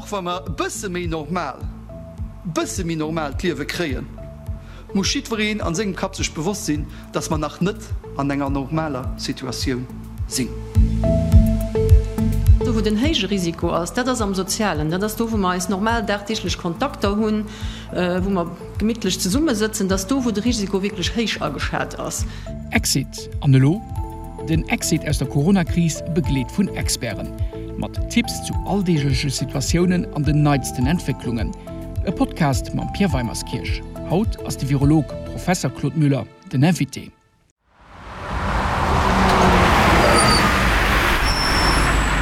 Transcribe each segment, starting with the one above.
Och wa mer e bësse méi normal, bësse méi normal d'Liewe kréien, muss jiddwereen an sengem Kapp sech bewosst sinn, dass mer nach net an enger normaler Situatioun sinn. Do wou den héije Risiko ass, dat ass am Sozialen, dat ass do wou mer eis normal dagdeeglech Kontakter hunn, wou mer gemittlech zesummesëtzen, dat ass do wou de Risiko wierklech héich ageschat ass. Exit, An elo? Den Exit aus der Corona-Kris begleet vun Experten. Mat Tipps zu alldeegleche Situatiounen an den neitsten Entwécklungen. E Podcast mam Pierre Weimerskirch. Haut ass de Virolog Professer Claude Müller den Invité.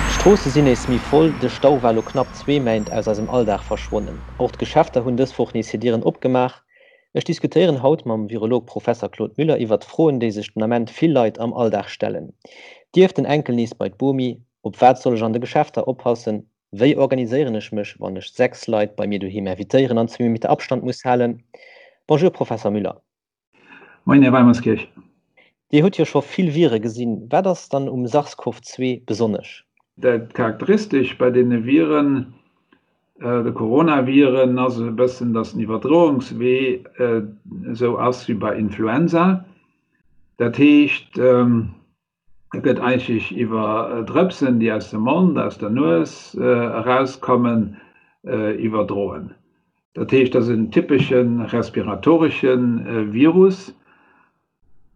D'Stroosse sinn nees méi voll, de Stau war elo knapp zwee Méint aus eisem Alldag verschwonnen. Och d'Geschäfter hunn dës Woch nees hir Dieren opgemaach. Ech diskutéieren haut mam Virolog Professer Claude Müller iwwert Froen, déi sech den Ament vill Leit am Alldag stellen. Dierf den Enkel nees bei d'Bomi? Op wat soll ech an de Geschäfter oppassen? Wéi organiséieren ech mech, wann ech 6 Leit bei mir doheem invitéieren an zwee Meter Abstand muss halen? Bonjour Professer Müller. Moien Här Weimerskirch. Dir hutt jo scho vill Vire gesinn. Wat ass dann um SARS-CoV-2 besonnesch? Dat Charakteristesch bei deene Viren, de Coronaviren, ass e bëssen, datt den Iwwerdroungswee esou ass wéi bei Influenza. Dat heescht, e gëtt eigentlech iwwer Drëpsen, déi aus dem Mond, aus der Nues erauskommen, iwwerdroen. Dat heescht, dat ass en typesche respiratoresche Virus.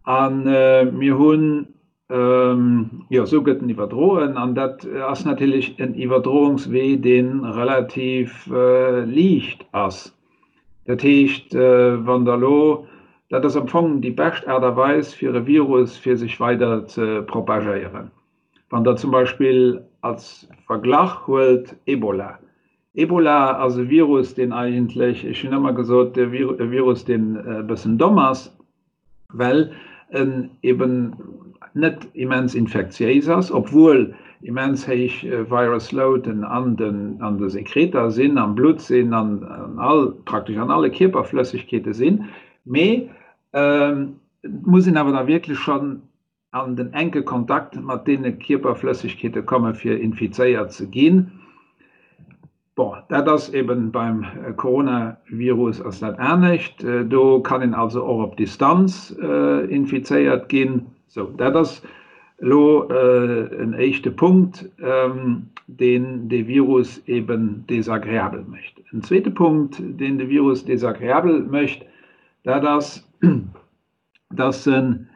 A mir hunn, jo, esou gëtt en iwwerdroen. An dat ass natierlech en Iwwerdroungswee, dee relativ liicht ass. Dat heescht, wann Der elo, dat ass am Fong déi bescht Aart a Weis, fir e Virus, fir sech weider ze propagéieren. Wann Der zum Beispill als Verglach huelt Ebola. Ebola ass e Virus, deen eigentlech, ech hunn ëmmer gesot, e Virus, deen e bëssen domm ass, well en eben net immens infektiéis ass, obwuel immens héich Virus Loaden an de Sekreter sinn, am Blutt sinn, an all, praktesch an alle Kierperflëssegkeete sinn. Mee et muss een awer da wierklech schonn an den enke Kontakt mat deene Kierperflëssegkeete komme fir infizéiert ze ginn. Bon, dat ass eben beim Coronavirus ass dat anescht. Do kann een also och op Distanz infizéiert ginn. Sou, dat ass elo en éischte Punkt, deen de Virus eben desagreabel mécht. En zweete Punkt, deen de Virus desagreabel mécht, dat ass, dass en,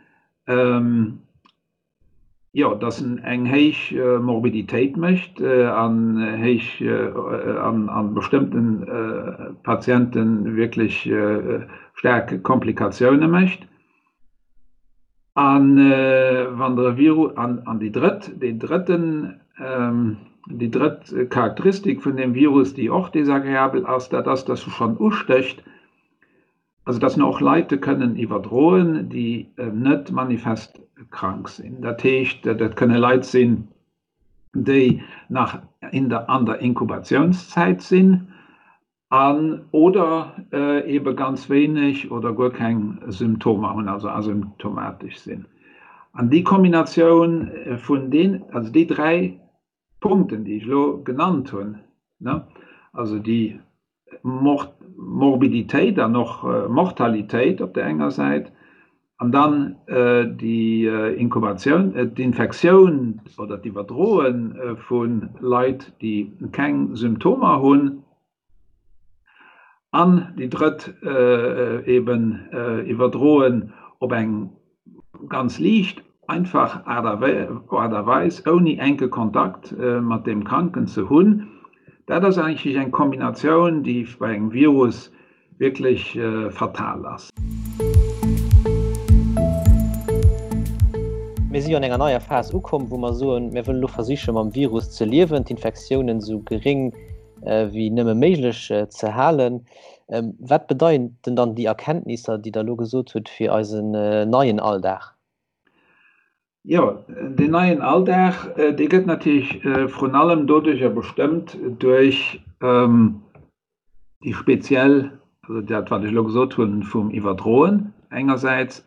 jo, dass en eng héich Morbiditéit mécht an héich an a bestëmmte Patiente wierklech staark Komplikatioune mécht. A wann der e Virus, an déi drëtt, deen drëtten, déi drëtt Charakteristik vun deem Virus, déi och desagreabel ass, dat ass, dass e schonn ustécht, Also dass mer och Leite kënnen iwwerdroen, déi net manifest krank sinn. Dat heescht, dat kënne Leit sinn, déi nach in der, an der Inkubatiounszäit sinn an oder eebe ganz wéineg oder guer keng Symptomer hunn, also asymptomatesch sinn. An déi Kombinatioun vun deen, also déi dräi Punkten, déi ech elo genannt hunn, also déi Morbiditéit an och Mortalitéit op där enger Säit an dann déi Inkubatioun, d'Infektioun oder d'Iwwerdroe vu Leit, déi keng Symptomer hunn, An déi drëtt eben iwwerdroen op eng ganz liicht, einfach Aart a Weis, ouni enke Kontakt mat deem Kranken ze hunn. Dat ass eigentlech eng Kombinatioun, déi bei engem Virus wierklech fatal ass. Mir si jo an enger neier Phas ukomm, wou mer soen, mir wëllen elo versiche mam Virus ze liewen, d'Infektiounen esou geréng wéi nëmme méiglech ze halen. Wat bedeiten dann déi Erkenntnisser, déi Der elo gesot hutt, fir eisen neien Alldag? Jo, deen neien Alldag, dee gëtt natierlech vrun allem doduercher bestëmmt, duerch déi speziell, also dat wat ech elo gesot hunn, vum Iwwerdroen engersäits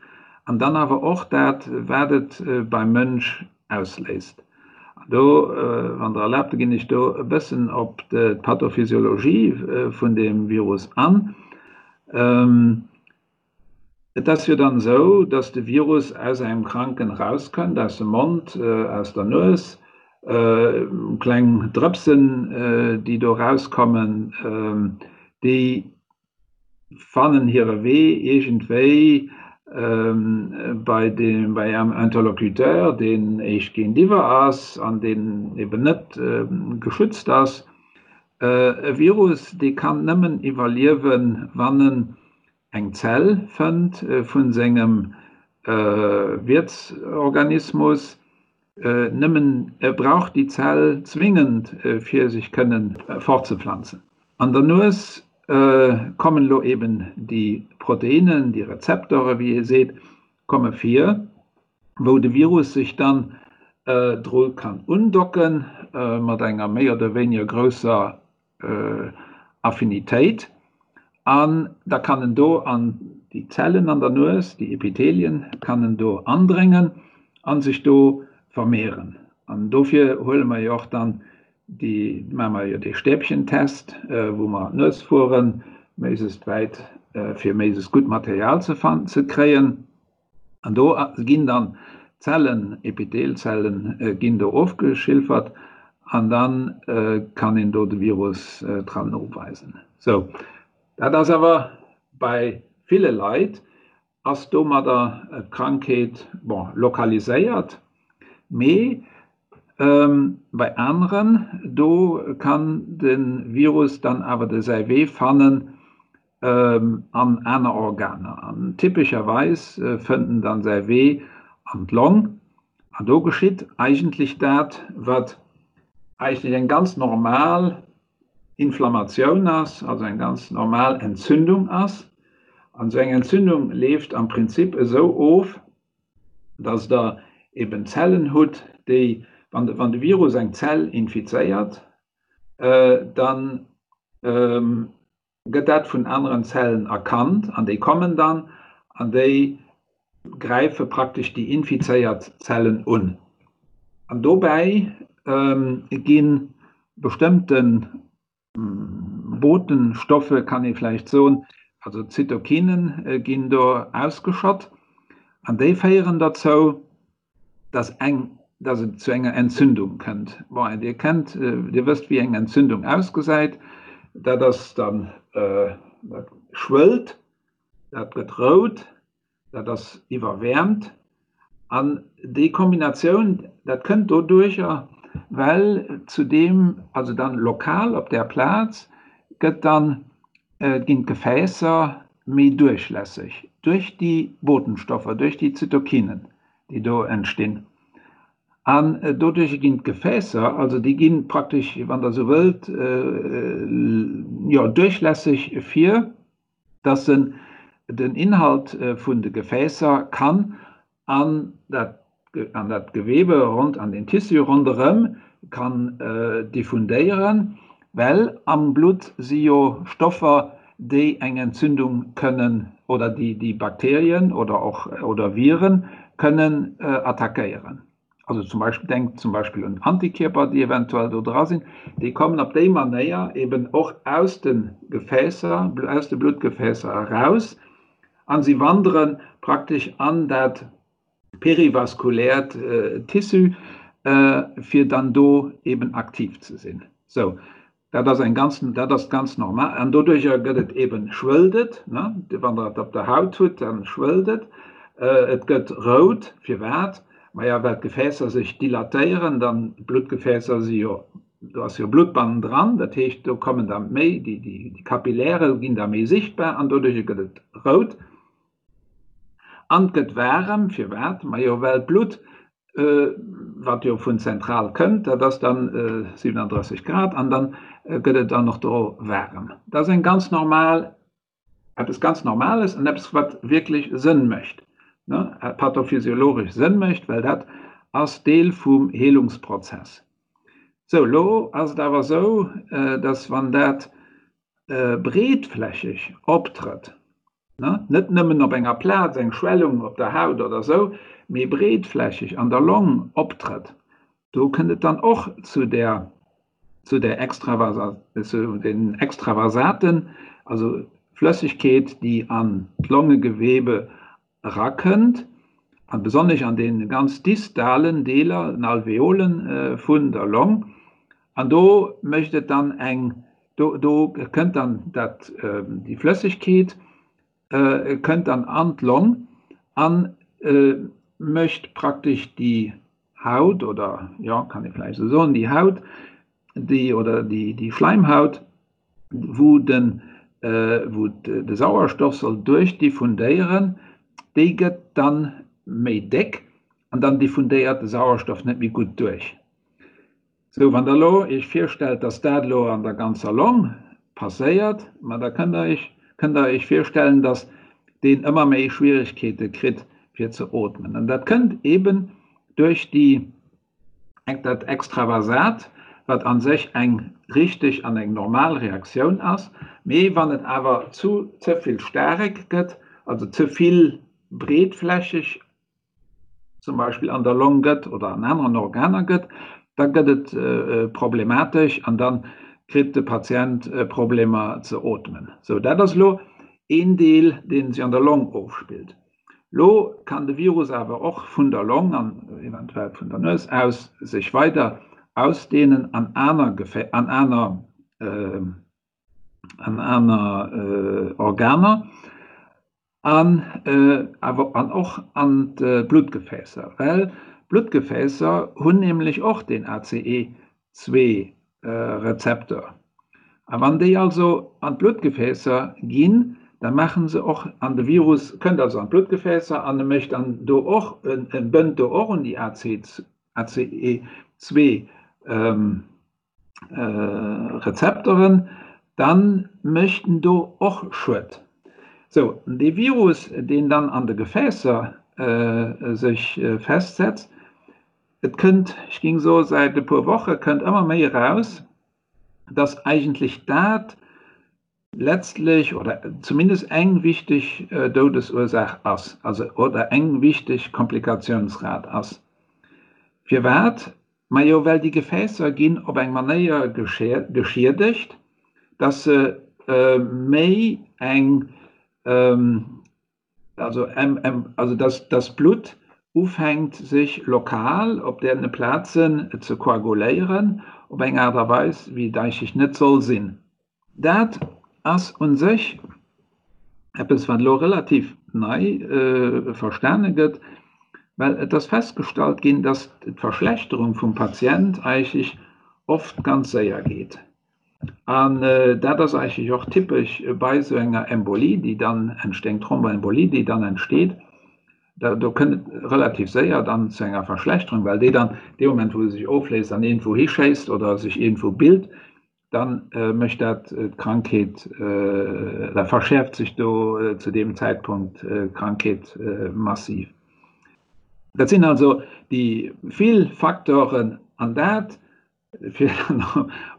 an dann awer och dat, wat et beim Mënsch ausléist. Do, wann Der erlaabt, ginn ech do e bëssen op d'Pathophysiologie vun deem Virus an. Et ass jo dann esou, dass de Virus aus engem Kranken erauskënnt, aus dem Mond, aus der Nues, kleng Drëpsen, déi do erauskommen, déi fannen hire Wee iergendwéi bei dem, bei engem Interlocuteur, deen éischt géintiwwer ass an deen eben net geschützt ass. E Virus, dee kann nëmmen iwwerliewen, wann en eng Zell fënnt vu sengem Wiertsorganismus. Nëmmen e brauch déi Zell zwingend, fir sech kënnen fortzeplanzen. An der Nues kommen elo eben déi Proteinen, déi Rezeptore wéi ee seet, komme vir, wou de Virus sech dann dru kann undocken, mat enger méi oder wéiniger grousser Affinitéit. An da kann en do an déi Zellen an der Nues, déi Epithelien, kann en do andréngen a sech do vermehren. An dofir huele mer jo och dann déi, maache mer jo dee Stäbchentest, wou mer an d'Nues fueren, méiglechst wäit, fir méiglechst gutt Material ze ze kréien. An do ginn dann d'Zellen, Epithelzellen ginn do ofgeschilfert an dann kann een do de Virus dran noweisen. Sou, dat ass awer bei ville Leit ass domadder d'Krankheet, bon, lokaliséiert, mee bei aneren, do kann de Virus dann awer de säi Wee fannen an aner Organer. An typescherweis fënnt en dann säi Wee an d'Long. An do geschitt eigentlech dat, wat eigentlech eng ganz normal Inflammatioun ass, also eng ganz normal Entzündung ass. An esou eng Entzündung leeft am Prinzip esou of, dass Der eben Zellen hutt, déi, wann de Virus eng Zell infizéiert, dann gëtt dat vun aneren Zellen erkannt an déi kommen dann an déi gräife praktesch déi infizéiert Zellen un. An dobäi gi bestëmmte Botenstoffe, kann ee vläicht soen, also Zytokinen ginn do ausgeschott an déi féieren derzou, dass eng, dass et zu enger Entzündung kënnt. Bon, Dir kennt, Dir wësst, wéi eng Entzündung ausgesäit. Dat ass dann, dat schwëllt, dat gëtt rout, dat ass iwwerwäermt. An déi Kombinatioun, dat kënnt doduercher, well zudeem, also dann lokal op där Plaz, gëtt dann, ginn d'Gefäässer méi duerchlässeg duerch déi Botenstoffer, duerch déi Zytokinen, déi do entstinn. An doduerch ginn d'Gefäässer, also déi gi praktesch, wann Der esou wëllt, jo, duerchlässeg fir dass se den Inhalt vun de Gefäässer kann an dat an dat Gewebe rond, an den Tissu ronderëm kann diffundéieren, well am Blutt si jo Stoffer, déi eng Entzündung kënnen oder déi déi Bakterien oder och oder Viren kënnen attackéieren. Also zum Beispill, denkt zum Beispill un Antikierper, déi eventuell do dra sinn, déi kommen op déi Manéier eben och aus de Gefäässer, aus de Bluttgefäässer eraus a si wandere praktesch an dat perivaskuläert Tissu, fir dann do eben aktiv ze sinn. Sou, dat ass eng ganz, dat ass ganz normal. An doduercher gëtt et eben, schwëllt et, ne, wann Der et op der Haut hutt, dann schwëllt et, et gëtt rout. Firwat? Maja, well d'Gefäässer sech dilatéieren, dann, d'Bluttgefäässer si jo, do ass jo Blutt bannendran, dat heescht, do kommen da méi, déi, déi Kapilläre ginn da méi sichtbar an doduercher gëtt et rout. An et gëtt waarem. Firwat? Majo, well d'Blutt, wat jo vun zentral kënnt, dat ass dann 37 Grad an dann gëtt et dann och do waarem. Dat ass eng ganz normal, eppes ganz Normales an eppes, wat wierklech Sënn mécht, ne, pathophysiologesch Sënn mécht, well dat ass Deel vum Heelungsprozess. Sou, elo ass et awer esou, dass wann dat breetflächeg optrëtt, net nëmmen op enger Plaz, eng Schwellung op der Haut oder esou, mee breetflächeg an der Long optrëtt. Do kënnt et dann och zu der zu der Extravasa zu den Extravasaten, also Flëssegkeet, déi an d'Longegewebe erakënnt, a besonnesch an deene ganz distalen Deeler, den Alveolen vun der Long. An do mécht et dann eng, do do kënnt dann dat déi Flëssegkeet kënnt dann an d'Long an mécht praktesch déi Haut oder, jo, kann ee vläicht esou soen, déi Haut, déi oder déi déi Schläimhaut, wou den wou de Sauerstoff soll duerchdiffundéieren, déi gëtt dann méi déck an dann diffundéiert de Sauerstoff net méi gutt duerch. Sou, wann Der elo Iech virstellt, dass dat elo an der ganzer Long passéiert, ma da kënnt Der Iech, kënnt Der Iech virstellen, dass deen ëmmer méi Schwierigkeete kritt fir ze ootmen. An dat kënnt eeben duerch déi, dat Extravasat, wat a sech eng richteg an eng normal Reaktioun ass, mee wann et awer zu ze vill staarek gëtt, also ze vill breetflächeg zum Beispill an der Long gëtt oder an aneren Organer gëtt, da gëtt et problematesch an da kritt de Patient Problemer ze ootmen. Sou, dat ass elo een Deel, dee sech an der Long ofspillt. Lo kann de Virus awer och vun der Long an eventuell vun der Nues aus sech weider ausdehnen an aner Gefä an aner an aner Organer. An awer an och an d'Bluttgefäässer, well d'Bluttgefäässer hunn nämlech och deen ACE2-Rezeptor. A wann déi also an d'Bluttgefäässer ginn, da maache se och, an de Virus kënnt also an d'Bluttgefäässer an e mécht dann do och, e bënnt do och un déi ACE2. Rezepteren, dann mécht en do och Schued. Sou, dee Virus, deen dann an de Gefäässer sech festsetzt, et kënnt, ech géing soe säit e puer Woche kënnt ëmmer méi eraus, dass eigentlech dat letztlech oder zumindest eng wichteg Doudesursaach ass, also oder eng wichteg Komplikationsrate ass. Firwat? Majo well déi Gefäässer ginn op eng Manéier geschiedegt, dass se méi eng, also also dass dass d'Blutt ufänkt sech lokal op deene Plazen ze koaguléieren op eng Aart a Weis wéi et eigentlech net soll sinn. Dat ass u sech eppes, wat elo relativ nei verstane gëtt, well et ass festgestallt ginn, dass d'Verschlechterung vum Patient eigentlech oft ganz séier geet. An dat ass eigentlech och typesch bei esou enger Embolie, déi dann entsteet, eng Thromboembolie, déi dann entsteet. Do kënnt et relativ séier dann zu enger Verschlechterung, well déi dann dee Moment, wou se sech ofléist an iergendwou hischéisst oder sech iergendwou bilt, dann mécht dat d'Krankheet, da verschäerft sech do zu deem Zäitpunkt d'Krankheet massiv. Dat sinn also déi vill Facteuren an dat, fir dann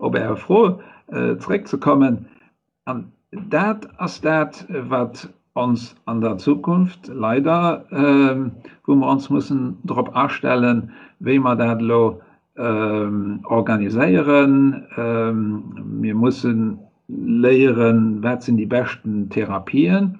op Är Fro zréckzekommen, an dat ass dat, wat ons an der Zukunft leider, wou mer ons mussen drop astellen, wéi mer dat elo organiséieren. Mir mussen léieren, wat sinn déi beschten Therapien.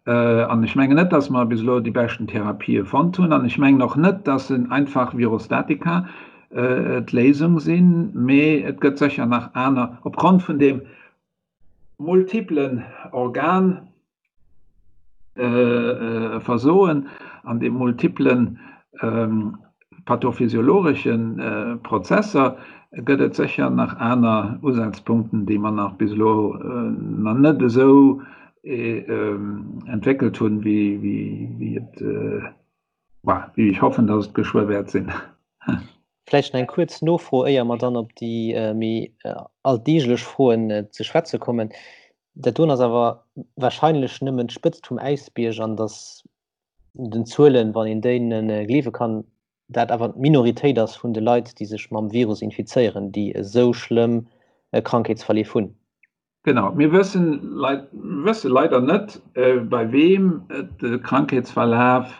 An ech mengen net, dass mer bis elo déi beschten Therapië fonnt hunn. An ech mengen och net, dass en einfach Virostatika d'Léisung sinn, mee et gëtt sécher nach aner, opgrond vun deem multiplen Organversoen an de multiplen pathophysiologesche Prozesser gëtt et sécher nach aner Usazpunkten, déi mer nach bis elo nach net esou entwéckelt hunn, wéi et, wéi ech hoffen, dass et geschwë wäert sinn. Vläicht nach eng kuerz Nofro, éier mer dann op déi méi alldeeglech Froen ze schwätze kommen. Dat doen ass awer warscheinlech nëmmen d'Spëtzt vum Äisbierg an datt den Zuelen, wann een deene gleewe kann, dat awer d'Minoritéit ass vun de Leit, déi sech mam Virus infizéieren, déi esou schlëmm Krankheetsverleef hunn. Genau, mir wëssen wësse leider net, bei weem de Krankheetsverlaf.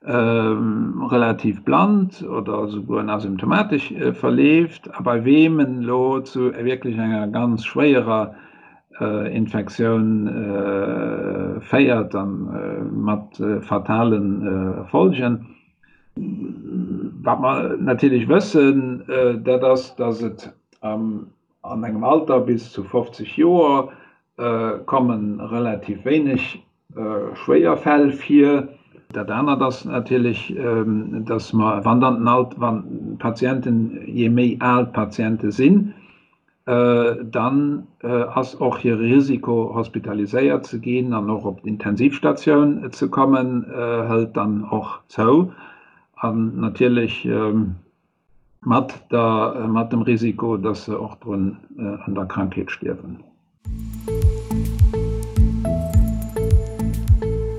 relativ bland oder esouguer asymptomatesch verleeft a bei weem en elo zu wierklech enger ganz schwéierer Infektioun féiert a mat fatale Folgen. Wat mer natierlech wëssen, dat ass, datt et an engem Alter bis zu 50 Joer komme relativ wéineg schwéier Fäll vir. Dat anert ass natierlech, datt mer, wann dann den Alt, wann d'Patienten, je méi al d'Patiente sinn, dann ass och hire Risiko hospitaliséiert ze ginn an och op d'Intensivstatioun ze kommen, hëlt dann och zou. An natierlech mat der, mat dem Risiko, dass se och drun an der Krankheet stierwen.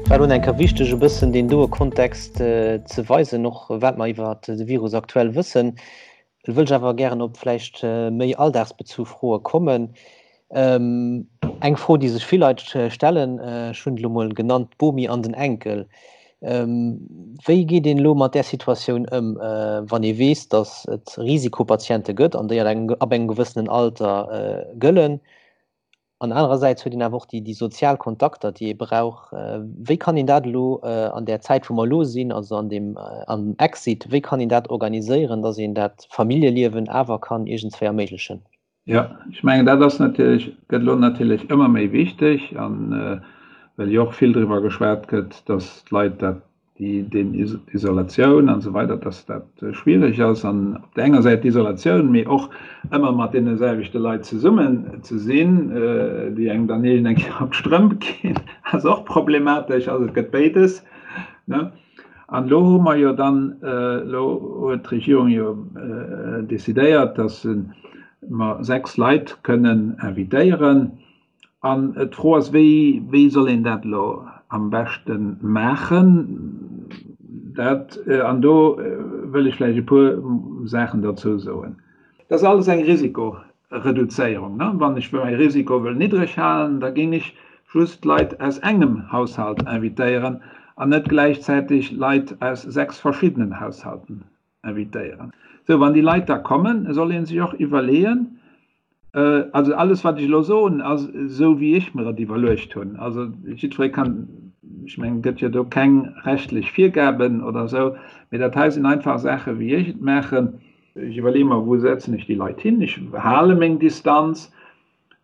Et war elo eng Kéier wichteg e bëssen deen doe Kontext ze weisen, och wat mer iwwer de Virus aktuell wëssen. Elo wëll ech awer gären op vläicht méi alldagsbezu Froe kommen. Eng Fro, déi sech vill Leit stellen, ech hunn et elo mol genannt, d'Bomi an den Enkel. Wéi geet een elo mat där Situatioun ëm, wann ee weess, datt et Risikopatiente gëtt an déi ab engem gewëssenen Alter gëllen? An anerersäits huet een awer och déi sozial Kontakter, déi ee brauch. Wéi kann een dat elo an där Zäit, wou mer elo sinn, also an deem am Exit, wéi kann een dat organiséieren, datt een dat Familljeliewen awer kann iergendswéi erméiglechen? Jo, ech mengen, dat ass natierlech, gëtt elo natierlech ëmmer méi wichteg, an well jo och vill driwwer geschwat gëtt, datt d'Leit dat, déi, deen d'Isolatioun an esou weider, datt dat schwierig ass an op där enger Säit d'Isolatioun, mee och ëmmer mat deene selwechte Leit zesummen ze sinn, déi engem dann iergend eng Kéier op d'Strëmp ginn, ass och problematesch. Also et gëtt béides, ne? An elo hu mer jo dann, elo huet d'Regierung jo decidéiert, dass mer 6 Leit kënnen invitéieren. An d'Fro ass, wéi, wéi soll een dat elo am beschte maachen? Dat, an do wëll ech vläicht e puer Saachen derzou soen. Dat ass alles eng Risiko, Reduzéierung, ne? Wann ech mäi Risiko wëll niddreg halen, da géing ech just Leit aus engem Haushalt invitéieren an net gläichzäiteg Leit aus 6 verschiddenen Haushalten invitéieren. Sou, wann déi Leit da kommen, soll ee sech och iwwerleeën, also alles wat ech elo soen, ass esou wéi ech mer et iwwerluecht hunn, also jiddweree kann, ech mengen, et gëtt jo do keng rechtlech Virgaben oder esou, mee dat hei sinn einfach Saache wéi ech et maachen. Ech iwwerleeë mer, wou setzen ech déi Leit hin? Ech hale meng Distanz.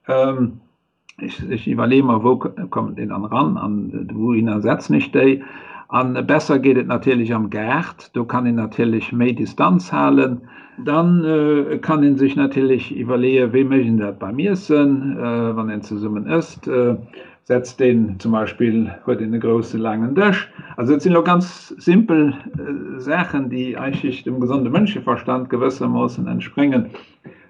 Ech iwwerleeë mer, wou kommen déi dann eran an wouhinner setzen ech déi? A besser geet et natierlech am Gaart, do kann een natierlech méi Distanz halen. Dann kann ee sech natierlech iwwerleeë, wéi mécht een dat beim Iessen, wann een zesummen ësst? Setzt een zum Beispill, huet een e grousse laangen Dësch. Also dat sinn elo ganz simpel Saachen, déi eigentlech dem gesonde Mënscheverstand gewëssermoossen entspréngen.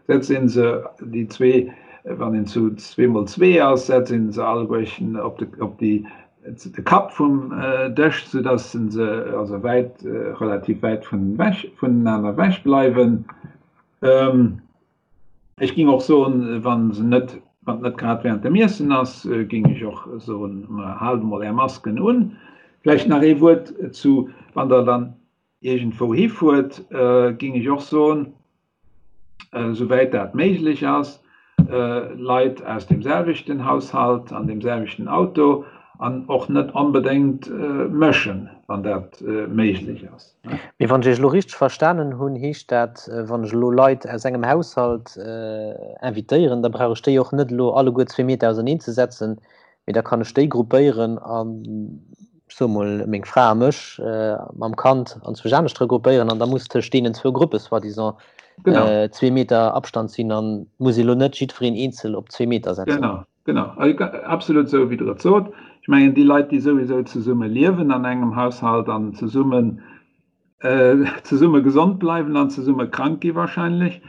Setzt een se, déi zwee, wann een zu zweemol zwee ass, setzt een se alleguerchen op de, op déi, de Kapp vum Dësch, soudass se also wäit, relativ wäit vun ewech, vonenaner ewech bleiwen. Ech ging och soen, wann se net, wann et net grad während dem Iessen ass, ging ech och soen, haalt emol är Masken un. Vläicht nach ee Wuert zu, wann der dann iergendwou hifuert, ging ech och soen, souwäit dat méiglech ass, Leit aus deem selwechten Haushalt an deem selwechten Auto an och net onbedéngt mëschen, wann dat méiglech ass. Mee wann ech Iech elo richteg verstanen hunn, heescht dat, wann ech elo Leit aus engem Haushalt invitéieren, da brauch ech déi och net elo alleguer zwee Meter auserneen ze setzen, mee da kann ech déi gruppéieren an, ech soe mol, meng Fra a mech mam Kand anzwousch anescht regruppéieren an da muss tëscht deenen zwou Gruppe soi-disant zwee Meter Abstand sinn an muss elo net jiddwereen eenzel op zwee Meter setzen. Genau. Genau, absolut esou wéi Der et sot. Ech mengen, déi Leit, déi souwisou zesumme liewen an engem Haushalt an zesummen, zesumme gesond bleiwen an zesumme krank gi wahrscheinlech,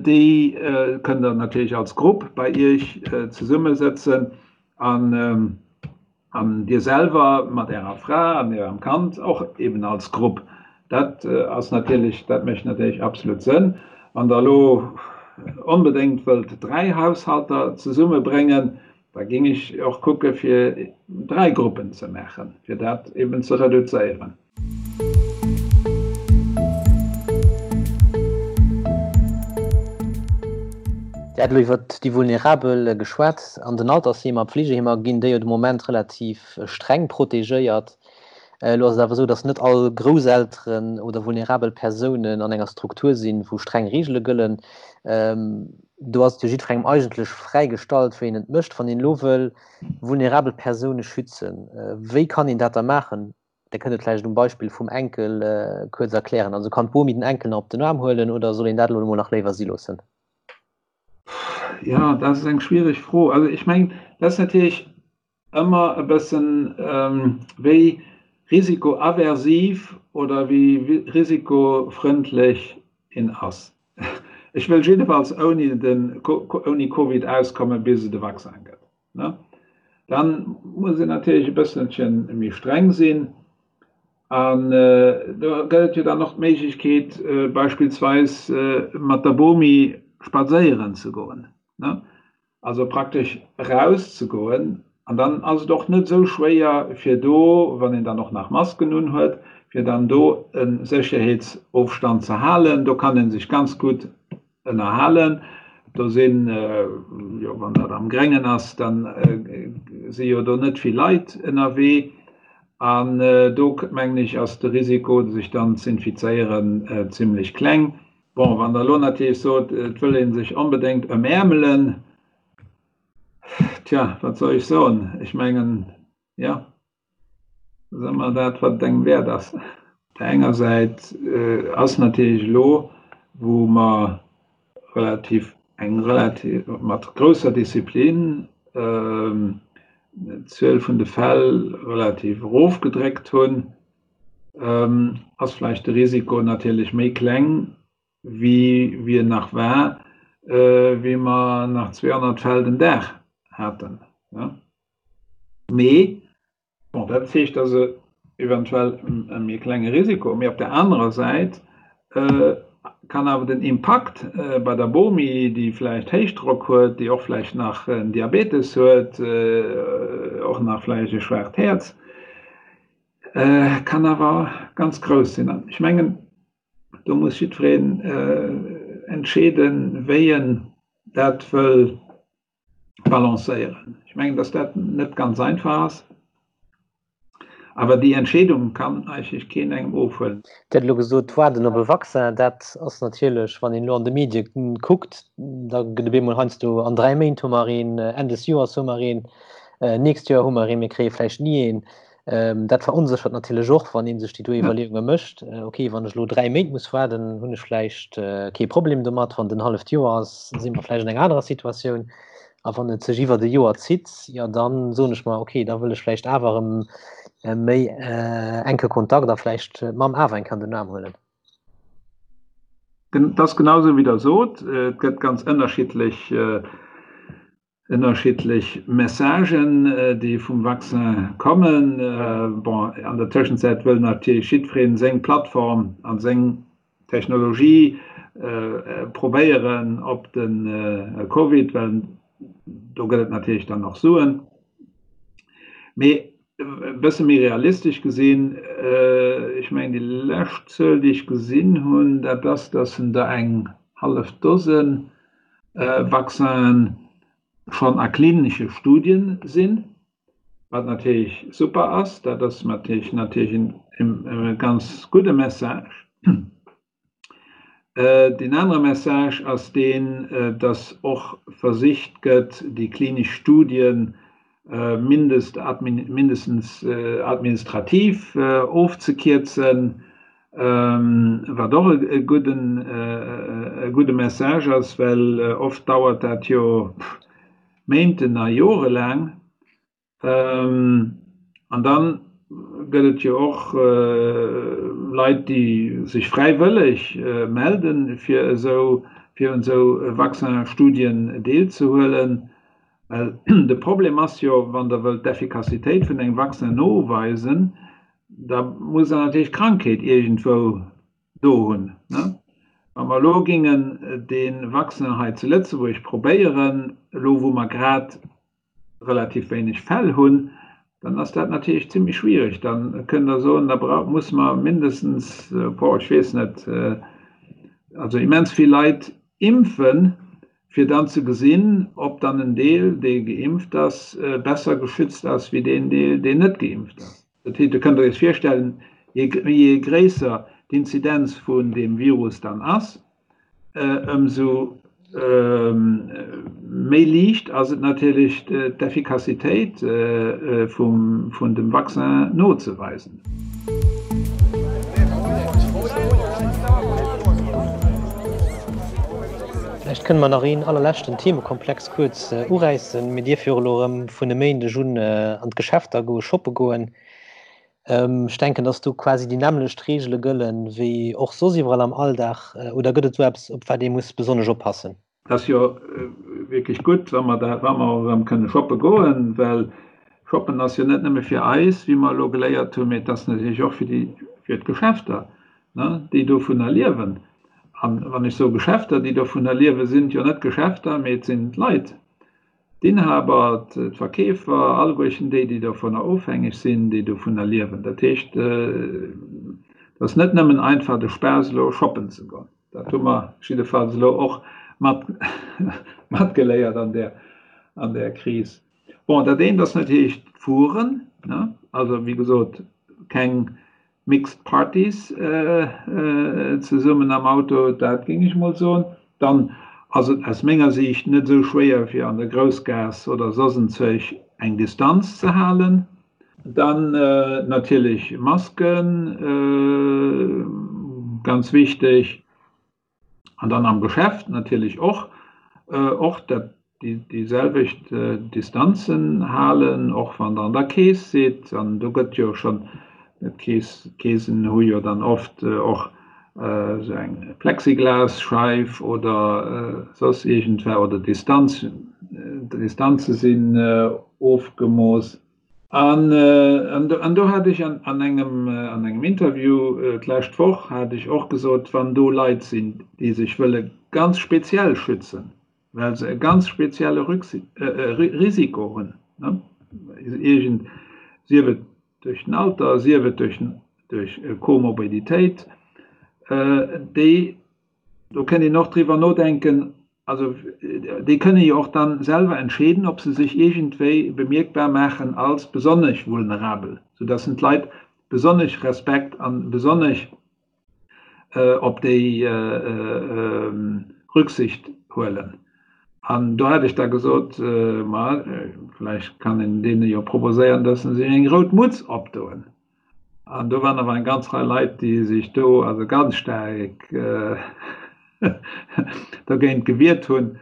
déi kënnt Der natierlech als Grupp bei Iech zesummesëtzen an, An Dir selwer mat Ärer Fra an Ärem Kand och eben als Grupp. Dat ass natierlech, dat mécht natierlech absolut Sënn. Wann Der elo onbedéngt wëllt 3 Haushalter zesummebréngen, da géing ech och kucke fir 3 Gruppen ze maachen, fir dat eben ze reduzéieren. Dir hat elo iwwert déi Vulnerabel geschwat. An den Altersheemer, Pflegeheemer ginn déi jo de Moment relativ streng protegéiert. Elo ass et awer esou, datt net all Grousselteren oder vulnerabel Persounen an enger Struktur sinn, wou streng Reegele gëllen. Do ass et jo jiddwerengem eigentlech fräi gestallt, wéi en et mécht. Wann een elo wëll vulnerabel Persoune schützen, wéi kann een dat da maachen? Dir kënnt et vläicht um Beispill vum Enkel kuerz erklären. Also kann d'Bomi den Enkel nach op den Aarm huelen oder soll een dat elo emol nach léiwer si loossen? Jo, dat ass eng schwiereg Fro. Also ech mengen, dat ass natierlech ëmmer e bëssen wéi risikoaversiv oder wéi risikofrëndlech een ass. Ech wëll jiddefalls ouni den, ouni Covid auskomme bis et e Vaccin gëtt. Ne? Dann muss een natierlech e bësselche méi streng sinn. An do gëtt et jo dann och d'Méiglechkeet, beispillsweis mat der Bomi spadséieren ze goen, ne? Also praktesch erauszegoen. An dann ass et och net esou schwéier, fir do, wann een dann och nach Masken unhuet, fir dann do e Sécherheetsofstand ze halen. Do kann ee sech ganz gutt ënnerhalen. Do sinn, jo wann dat am Gréngen ass, da si jo do net vill Leit ënnerwee. An do mengen ech ass de Risiko sech dann z'infizéieren zimlech kleng. Bon, wann Der elo natierlech sot, et wëll ee sech onbedéngt ëmäermelen, tja, wat soll ech soen? Ech mengen, jo. Dat ass ëmmer dat, wat et engem wäert ass. Op der enger Säit ass natierlech elo, wou mer relativ, eng relativ, mat grousser Disziplin d'Zuel vun de Fäll relativ erofgedréckt hunn, ass vläicht de Risiko natierlech méi kleng, wéi wéi en nach war, wéi mer nach 200 Fäll den Dag haten. Mee, bon, dat heescht also eventuell e méi klenge Risiko. Mee op der anerer Säit kann awer den Impakt bei der Bomi, déi vläicht Héichdrock huet, déi och vläicht nach en Diabetes huet, och nach vläicht e schwaacht Häerz, kann awer ganz grouss sinn. An ech mengen, do muss jiddwereen entscheeden, wéi en dat wëll balancéieren. Ech mengen, dass dat net ganz einfach ass, awer déi Entscheedung kann eigentlech keen engem ofhuelen. Dir hat elo gesot, d'Waarden op e Vaccin, dat ass natierlech, wann een elo an de Medie kuckt, da gëtt op eemol heiansdo, an 3 Méint hu mer een, Enn des Joers hu mer een, nächst Joer hu mer een, mir kréie vläicht ni een. Dat veronséchert natierlech och, wann ee sech déi do Iwwerleeunge mécht, okay, wann ech elo 3 Méint muss waarden, hunn ech vläicht kee Problem domat, wann et en halleft Joer ass, si mer vläicht an enger anerer Situatioun. A wann et sech iwwert e Joer zitt, jo da soen ech mer, okay, da wëll ech vläicht awer erëm méi enke Kontakt a vläicht d'Mamm awer eng Kéier an den Aarm huelen. Dat ass genau esou, wéi Der sot. Et gëtt ganz ënnerschiddlech Ënnerschiddlech Messagen, déi vum Vaccin kommen. Bon, an der Tëschenzäit wëll natierlech jiddweree seng Plattform a seng Technologie probéieren op de Covid, well do gëtt et natierlech dann och Suen. Mee e bësse méi realistesch gesinn, ech mengen déi lescht Zuel, déi ech gesinn hunn, dat ass, datt en der eng hallef Dose Vaccinen schonn a klinesche Studien sinn, wat natierlech super ass. Dat ass natierlech natierlech e ganz gudde Message. Deen anere Message ass deen, dass och versicht gëtt, déi klinesch Studien mindestens administrativ ofzekierzen, wat och e gudde Message ass, well oft dauert dat jo Méinten a jorelaang. An dann gëtt et jo och Leit, déi sech fräiwëlleg melden, fir esou fir un esou Vaccin-Studien deelzehuelen. Well de Problem ass jo, wann Der wëllt d'Effikassitéit vun engem Vaccin noweisen, da muss Der natierlech d'Krankheet iergendwou do hunn. Wa mer elo géingen dee Vaccin hei zu Lëtzebuerg probéieren, elo wou mer grad relativ wéineg Fäll hunn, dann ass dat natierlech zimmlech schwierig. Da kënnt Der soen, da muss mer mindestens, boah, ech weess net, also immens vill Leit impfen, Fir dann ze gesinn, ob dann en Deel, dee geimpft ass, besser geschützt ass wéi deen Deel, deen net geimpft ass. Dat heescht, Dir kënnt Iech virstellen, je gréisser d'Inzidenz vun deem Virus dann ass, ëmsou méi liicht ass et natierlech, d'Effikassitéit vun dem Vaccin nozeweisen. Vläicht kënne mer nach een allerleschten Themekomplex kuerz uräissen. Mir dierfe jo elo erëm vun e Méindeg un an d'Geschäfter goe shoppe goen. Ech denken, dass do quasi déi nämmlecht Reegele gëllen, wéi och soss iwwerall am Alldag. Oder gëtt et do eppes, op wat ee muss besonnesch oppassen? Et ass jo wierklech gutt, wa mer dat, wa mer och erëm kënne shoppe goen, well shoppen ass jo net nëmme fir eis, wéi mer elo geléiert hunn, mee et ass natierlech och fir déi, fir d'Geschäfter, ne, déi dovunner liewen. An wann ech soe Geschäfter, déi dovunner liewen, sinn et jo net d'Geschäfter, mee et sinn d'Leit. D'Inhaber, d'Verkeefer, alleguerchen déi, déi dovunner ofhängeg sinn, déi dovunner liewen. Dat heescht, et ass net nëmmen einfach de Spaass elo shoppen ze goen. Dat hu mer jiddefalls elo och mat matgeléiert an där, an där Kris. Bon, dat eent ass natierlech d'Fueren, ne, also wéi gesot, keng Mixed Parties zesummen am Auto, dat géing ech mol soen. Dann ass et aus menger Siicht net esou schwéier fir an der Groussgaass oder soss enzwousch eng Distanz ze halen. Dann natierlech Masken, ganz wichteg. An dann am Geschäft natierlech och, och dat déi selwecht Distanzen halen, och wann Der an der Kees sidd. An do gëtt jo schonn, d'Kees, d'Keesen hu jo dann oft och esou eng Plexiglasscheif oder soss iergendwa, oder Distanz, d'Distanze sinn ofgemooss. An do hat ech an engem Interview d'lescht Woch hat ech och gesot, wann do Leit sinn, déi sech wëlle ganz speziell schützen, well se e ganz spezielle Risiko hunn, iergend, sief et duerch den Alter, sief et duerch Komorbiditéit, déi Do kënnt een och driwwer nodenken, also déi kënne jo och dann selwer entscheeden, ob se sech iergendwéi bemierkbar maachen als besonnesch vulnerabel, soudass en d'Leit besonnesch Respekt an besonnesch op déi Rücksicht huelen. An do hat ech da gesot, ma vläicht kann een deene jo proposéieren, dass se sech eng rout Mutz opdoen. An do waren awer eng ganz Rei Leit, déi sech do also ganz staark dogéint gewiert hunn.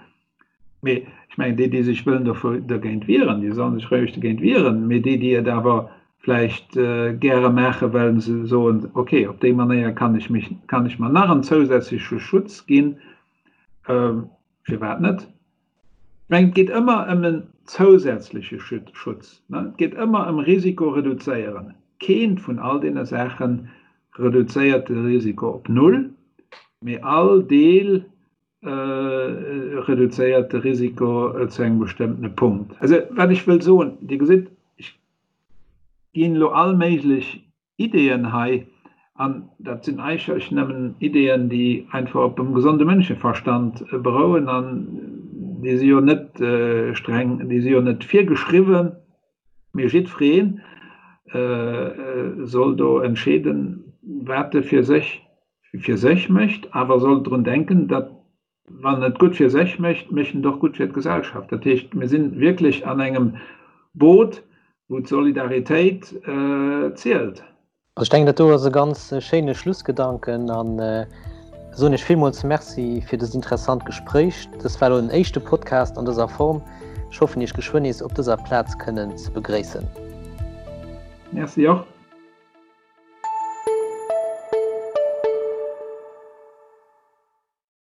Mee ech mengen, déi, déi sech wëllen dogéint wieren, déi sollen sech roueg dogéint wieren. Mee déi, déi et awer vläicht gäre maachen, well se soen, okay, op déi Manéier kann ech mech, kann ech mer nach en zousätzleche Schutz ginn, firwat net? Ech mengen, et geet ëmmer ëm en zousätzleche Schutz. Et geet ëmmer ëm Risiko reduzéieren. Keent vun all deene Saache reduzéiert de Risiko op null, mee all Deel reduzéiert de Risiko zu engem bestëmmtene Punkt. Also, wat ech wëll soen, Dir gesitt, ech ginn elo all méiglech Ideeën hei, an dat sinn eigentlech nëmmen Ideeën, déi einfach op dem gesonde Mënscheverstand berouen, an déi si jo net streng, déi si jo net virgeschriwwen, mee jiddweree soll do entscheeden, wat e fir sech fir sech mécht, awer soll drun denken, datt Wann et gutt fir sech mécht, mécht en et och gutt fir d'Gesellschaft. Dat heescht, mir si wierklech an engem Boot, wou d'Solidaritéit zielt. Also ech denken, dat do ass e ganz schéine Schlussgedanken an soen Iech villmools Merci fir dëst interessant Gespréich. Dëst war elo den éischte Podcast an dëser Form. Ech hoffen, Iech geschwënn nees op dëser Plaz kënnen ze begréissen. Merci och.